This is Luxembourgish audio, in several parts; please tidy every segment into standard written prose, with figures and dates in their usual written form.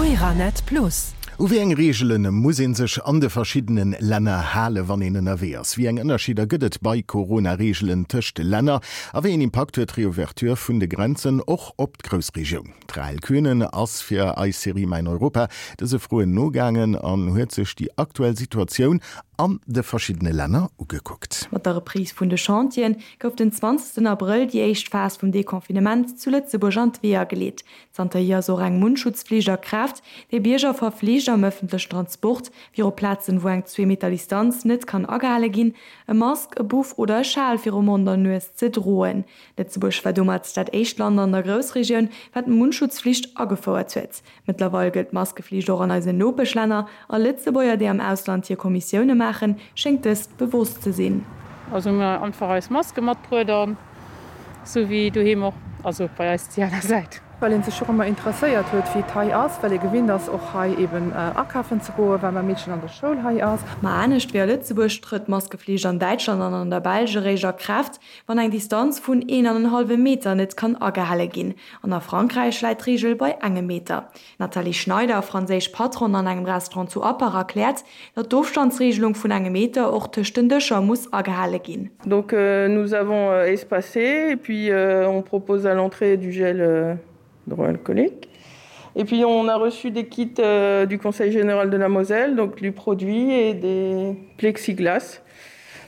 Euranet Plus. U wéi eng Reegele muss ee sech an de verschiddene Länner hale wann een ënnerwee ass? Wéi eng Ënnerscheeder gëtt et bei Corona-Reegelen tëscht Länner? A wéi een Impakt huet d'Reouverture vun de Grenzen och op d'Groussregioun? D'Rahel Könen ass fir eis Serie Mäin Europa dëse Froen nogaangen an huet sech déi aktuell Situatioun an de verschiddene Länner ugekuckt. Mat der Reprise vun de Chantieren gouf den 20 Abrëll déi éischt Phas vum Deconfinement zu Lëtzebuerg an d'Weeër geleet. Zanterhier ass och eng Mundschutzflicht a Kraaft, déi Bierger verflicht, am ëffentlechen Transport, viru Plazen, wou eng Zweemeter Distanz net kann agehale ginn, e Mask, e Buff oder e Schal viru Mond an Nues ze droen. Lëtzebuerg war domat dat éischt Land an der Groussregioun, wat d'Mundschutzflicht agefouert huet. Mëttlerweil gëllt d'Maskeflicht och an eisen Nopeschlänner, a Lëtzebuerger, déi am Ausland hir Kommissioune maachen, schéngt dëst bewosst ze sinn. Also hu mir einfach eis Maske matbruet an sou wéi doheem och, also bei eis déi aner Säit. Well een sech och ëmmer interesséiert huet, wéi et hei ass, well ee gewinnt ass, och hei eben akafen ze goen, well mäi Meedchen an der Schoul hei ass. Ma anescht wéi a Lëtzebuerg trëtt d'Maskeflicht an Däitschland an an der Belsch eréischt a Kraaft, wann eng Distanz vun een an en hallwe Meter net kann agehale ginn. An a Frankräich läit d'Reegel bei engem Meter. D'Nathalie Schneider, franséisch Patronne an engem Restaurant zu Appach, erkläert, datt d'Ofstandsreegelung vun engem Meter och tëscht den Dëscher muss agehale ginn. Donc nous avons espacé et puis on propose à l'entrée du gel hydroalcoolique. Et puis on a reçu des kits du Conseil général de la Moselle, donc du produit et des plexiglas.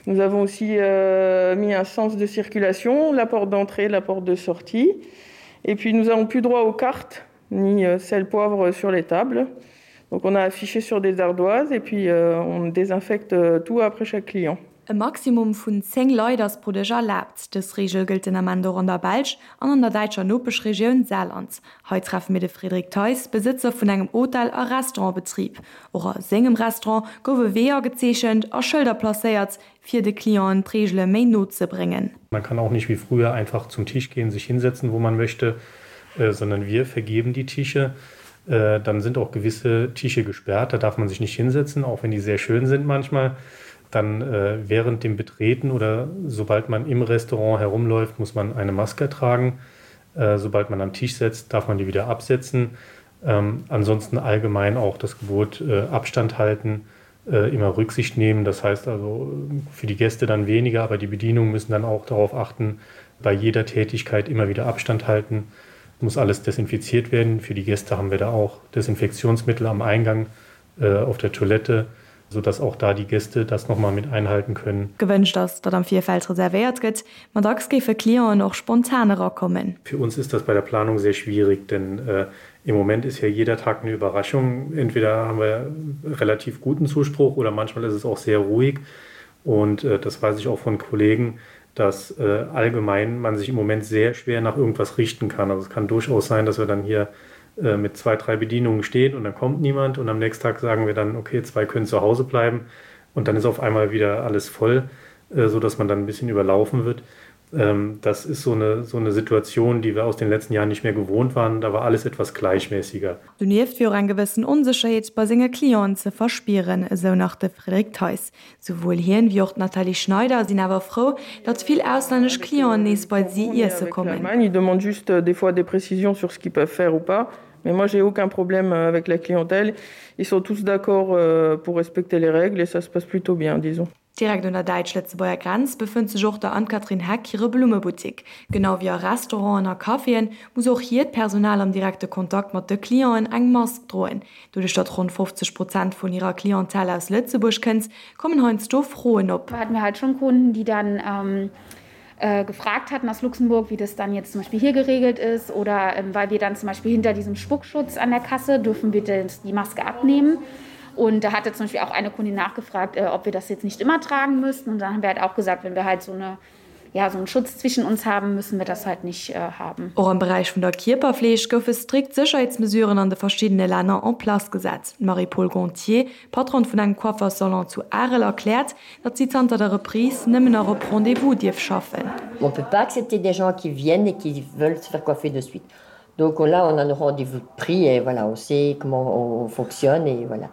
Nous avons aussi euh, mis un sens de circulation, la porte d'entrée, la porte de sortie. Et puis nous avons plus droit aux cartes ni euh, sel poivre sur les tables. Donc on a affiché sur des ardoises et puis euh, on désinfecte euh, tout après chaque client. E Maximum vun 10 Leit ass pro Dësch erlaabt. Dës Reegel gëllt den Ament och an der Belsch an an der däitscher Nopeschregioun Saarland. Hei treffe mir de Frédéric Theis, Besëtzer vun engem Hotel a Restaurantbetrib. Och a sengem Restaurant gouf e Wee agezeechent a Schëlder placéiert, fir de Clienten d'Reegele méi no ze bréngen. Man kann auch nicht wie früher einfach zum Tisch gehen, sich hinsetzen, wo man möchte, sondern wir vergeben die Tische. Dann sind auch gewisse Tische gesperrt, da darf man sich nicht hinsetzen, auch wenn die sehr schön sind manchmal. Dann während dem Betreten oder sobald man im Restaurant herumläuft, muss man eine Maske tragen. Sobald man am Tisch setzt, darf man die wieder absetzen. Ähm, ansonsten allgemein auch das Gebot Abstand halten, immer Rücksicht nehmen. Das heißt also für die Gäste dann weniger, aber die Bedienungen müssen dann auch darauf achten, bei jeder Tätigkeit immer wieder Abstand halten. Muss alles desinfiziert werden. Für die Gäste haben wir da auch Desinfektionsmittel am Eingang äh, auf der Toilette, sodass auch da die Gäste das noch mal mit einhalten können. Gewënscht ass, datt am Virfeld reservéiert gëtt, ma dacks géife Clienten och spontan erakommen. Für uns ist das bei der Planung sehr schwierig, denn äh, im Moment ist ja jeder Tag eine Überraschung. Entweder haben wir relativ guten Zuspruch oder manchmal ist es auch sehr ruhig. Und äh, das weiß ich auch von Kollegen, dass äh, allgemein man sich im Moment sehr schwer nach irgendwas richten kann. Also es kann durchaus sein, dass wir dann hier äh, mit zwei, drei Bedienungen stehen und dann kommt niemand und am nächsten Tag sagen wir dann, okay, zwei können zu Hause bleiben und dann ist auf einmal wieder alles voll, äh, so dass man dann ein bisschen überlaufen wird. Ähm, das ist so eine, so eine Situation, die wir aus den letzten Jahren nicht mehr gewohnt waren. Da war alles etwas gleichmäßiger. Donieft wier och eng gewëssen Onsécherheet bei senge Clienten ze verspieren, esou nach de Frédéric Theis. Souwuel hien wéi och d'Nathalie Schneider sinn awer frou, datt vill auslännesch Clienten nees bei si iesse kommen. Ils demandent juste des fois des précisions sur ce qu'ils peuvent faire ou pas. Mais moi j'ai aucun problème avec la clientèle. Ils sont tous d'accord pour respecter les règles et ça se passe plutôt bien, disons. Direkt un der däitsch-lëtzebuerger Grenz befënnt sech och der Anne-Catherine Heck hire Blummebuttik. Genau wéi a Restauranten a Caféen muss och hiert Personal am direkte Kontakt mat de Clienten eng Mask droen. Doduerch datt ronn 50 Prozent vun hirer Clientèle aus Lëtzebuerg kënnt, kommen heiansdo Froen op. Hatten wir halt schon Kunden, die dann ähm, äh, gefragt hatten aus Luxemburg, wie das dann jetzt zum Beispiel hier geregelt ist oder ähm, weil wir dann zum Beispiel hinter diesem Spuckschutz an der Kasse dürfen wir die Maske abnehmen. Und da hatte zum Beispiel auch eine Kundin nachgefragt, äh, ob wir das jetzt nicht immer tragen müssten. Und dann haben wir halt auch gesagt, wenn wir halt so eine ja, so einen Schutz zwischen uns haben, müssen wir das halt nicht äh, haben. Och am Beräich vun der Kierperfleeg goufe strikt Sécherheetsmesuren an de verschiddene Länner en place gesat. D'Marie-Paule Gontier, Patronne vun engem Coiffersalon zu Arel, erkläert, datt si zanter der Reprise nëmmen nach op Rendez-vous dierf schaffen. On peut pas accepter des gens qui viennent et qui veulent se faire coiffer de suite. Donc là on a nos rendez-vous pris et voilà, on sait comment on fonctionne et voilà.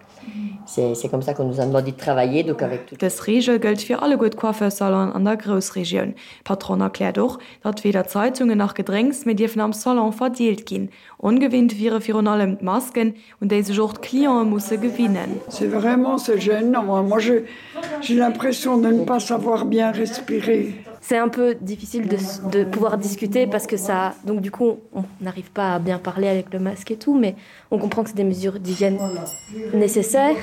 C'est comme ça qu'on nous a demandé de travailler donc avec tout. Dës Reegel gëllt fir alleguer d'Coiffeursalonen an der Groussregioun. D'Patronne erkläert och, datt weder Zeitungen nach Gedrénks méi dierfen am Salon verdeelt ginn. Ongewinnt wiere virun allem d'Masken, un déi sech och d'Clientë musse gewinnen. C'est vraiment c'est gênant moi je j'ai l'impression de ne pas savoir bien respirer. C'est un peu difficile de, de pouvoir discuter parce que ça donc du coup on n'arrive pas à bien parler avec le masque et tout mais on comprend que c'est des mesures d'hygiène nécessaires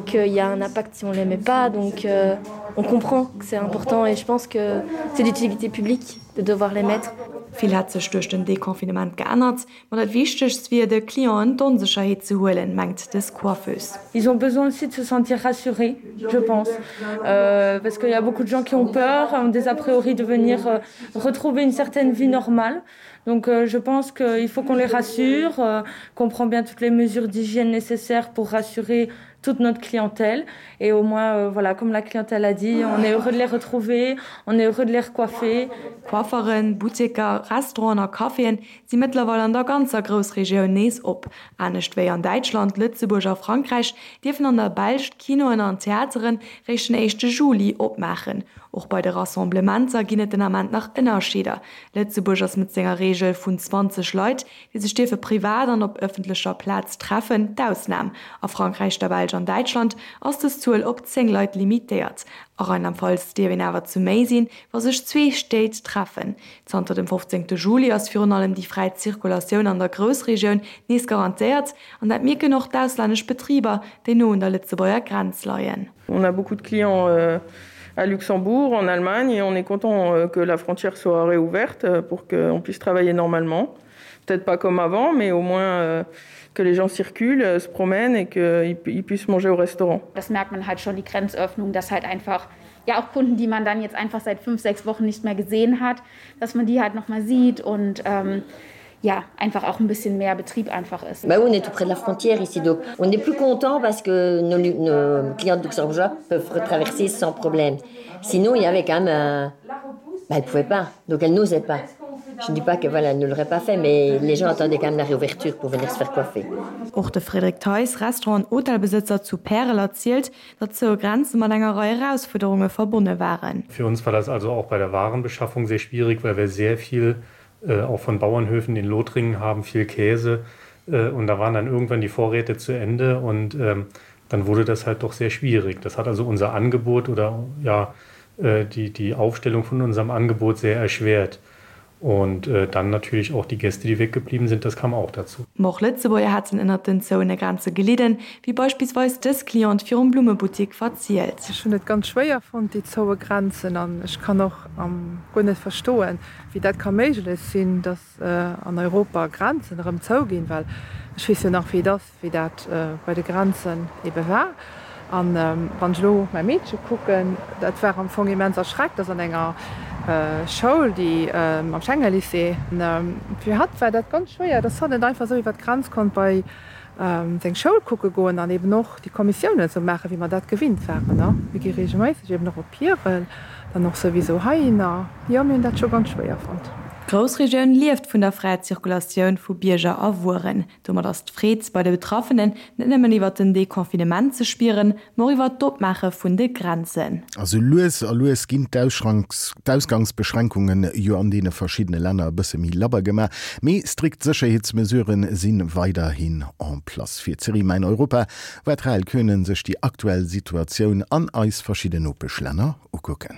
qu'il y a un impact si on les met pas donc euh, on comprend que c'est important et je pense que c'est d'utilité publique de devoir les mettre. Vill hätt sech duerch den Deconfinement geännert, ma dat Wichtegst wier, de Clienten d'Onsécherheet ze huelen, mengt dës Coiffeuse. Ils ont besoin aussi de se sentir rassurés, je pense, euh, parce qu'il y a beaucoup de gens qui ont peur, ont des a priori de venir euh, retrouver une certaine vie normale. Donc euh, je pense qu'il faut qu'on les rassure, euh, qu'on prend bien toutes les mesures d'hygiène nécessaires pour rassurer toute notre clientèle et au moins euh, voilà comme la clientèle a dit on est heureux de les retrouver on est heureux de les recoiffer Coifferen, Butteker, Restauranten a Caféen si mëttlerweil an der ganzer Groussregioun nees op. Anescht wéi an Däitschland, Lëtzebuerg a Frankräich dierfen an der Belsch d'Kinoen an d'Theateren réischt den éischte Juli opmaachen. Och bei de Rassemblementer ginn et den Ament nach Ënnerscheeder. Lëtzebuerg ass mat senger Reegel vun 20 Leit, déi sech dierfe privat an op ëffentlecher Plaz treffen, d'Ausnam. A Frankräich, der Belsch an Däitschland ass dës Zuel op 10 Leit limitéiert. A Rheinland-Pfalz dierf een awer zu méi sinn, wa sech zwee Stéit treffen. Zanter dem 15 Juli ass virun allem déi fräi Zirkulatioun an der Groussregioun nees garantéiert an dat mierken och d'auslännesch Betriber, déi no un der Lëtzebuerger Grenz leien. On a beaucoup de clients à Luxembourg, en Allemagne et on est content que la frontière soit réouverte pour qu'on puisse travailler normalement. Peut-être pas comme avant, mais au moins que les gens circulent, se promènent et qu'ils puissent manger au restaurant. Das merkt man halt schon die Grenzöffnung, dass halt einfach ja auch Kunden, die man dann jetzt einfach seit fünf, sechs Wochen nicht mehr gesehen hat, dass man die halt noch mal sieht und ähm, ja einfach auch ein bisschen mehr Betrieb einfach ist. Bah, on est tout près de la frontière ici donc on est plus content parce que nos, nos clients de Luxembourgeois peuvent retraverser sans problème. Sinon il y avait quand même un... bah, elle pouvait pas donc elle n'osait pas. Je ne dis pas que voilà, elle ne l'aurait pas fait, mais les gens attendaient quand même la réouverture pour venir se faire coiffer. Och de Frédéric Theis, Restaurant an Hotelbesëtzer zu Pärel erzielt, datt zoue Grenze mat enger Rei Erausfuerderunge verbonne waren. Für uns war das also auch bei der Warenbeschaffung sehr schwierig, weil wir sehr viel äh, auch von Bauernhöfen in Lothringen haben, viel Käse äh, und da waren dann irgendwann die Vorräte zu Ende und ähm, dann wurde das halt doch sehr schwierig. Das hat also unser Angebot oder ja äh, die, die Aufstellung von unserem Angebot sehr erschwert. Und äh, dann natürlich auch die Gäste, die weggeblieben sind, das kam auch dazu. Ma och Lëtzebuerger hätten ënnert den zouene Grenze gelidden, wéi beispillsweis dës Cliente virum Blummebuttik verzielt. Ech hunn et ganz schwéier fonnt, déi zoue Grenzen, an ech kann och guer net verstoen, wéi dat ka méiglech sinn, datt an Europa Grenzen erëm zouginn, well ech weess jo nach, wéi et ass, wéi dat bei de Grenzen ebe war. An wann ech elo mäi Meedche kucken, dat war am Fong immens erschreckt, ass an enger Schoul, déi am Schengen-Lycée. Fir hatt war dat ganz schwéier, dass hatt net einfach esou iwwer d'Grenz konnt bei seng Schoul kucke goen an eben och déi Kommissiounen esou maachen, wéi mer dat gewinnt waren. Mir gi reegelméisseg eben och op Pierel, dann och souwisou heihinner. Jo, mir hunn dat scho ganz schwéier fonnt. D'Groussregioun lieft vun der fräier Zirkulatioun vu Bierger a Wueren. Domat ass d'Freed bei de Betraffenen net nëmmen iwwert den Deconfinement ze spieren, ma och iwwert d'Opmaache vun de Grenzen. A sou lues a lues ginn d'Ausgangsbeschränkunge jo an deene verschiddene Länner e bësse méi labber gemaach, mee strikt Sécherheetsmesurë si weiderhin en place. Fir d'Serie Mäin Europa war d'Rahel Könen sech déi aktuell Situatioun an eis verschidden Nopeschlänner ukucken.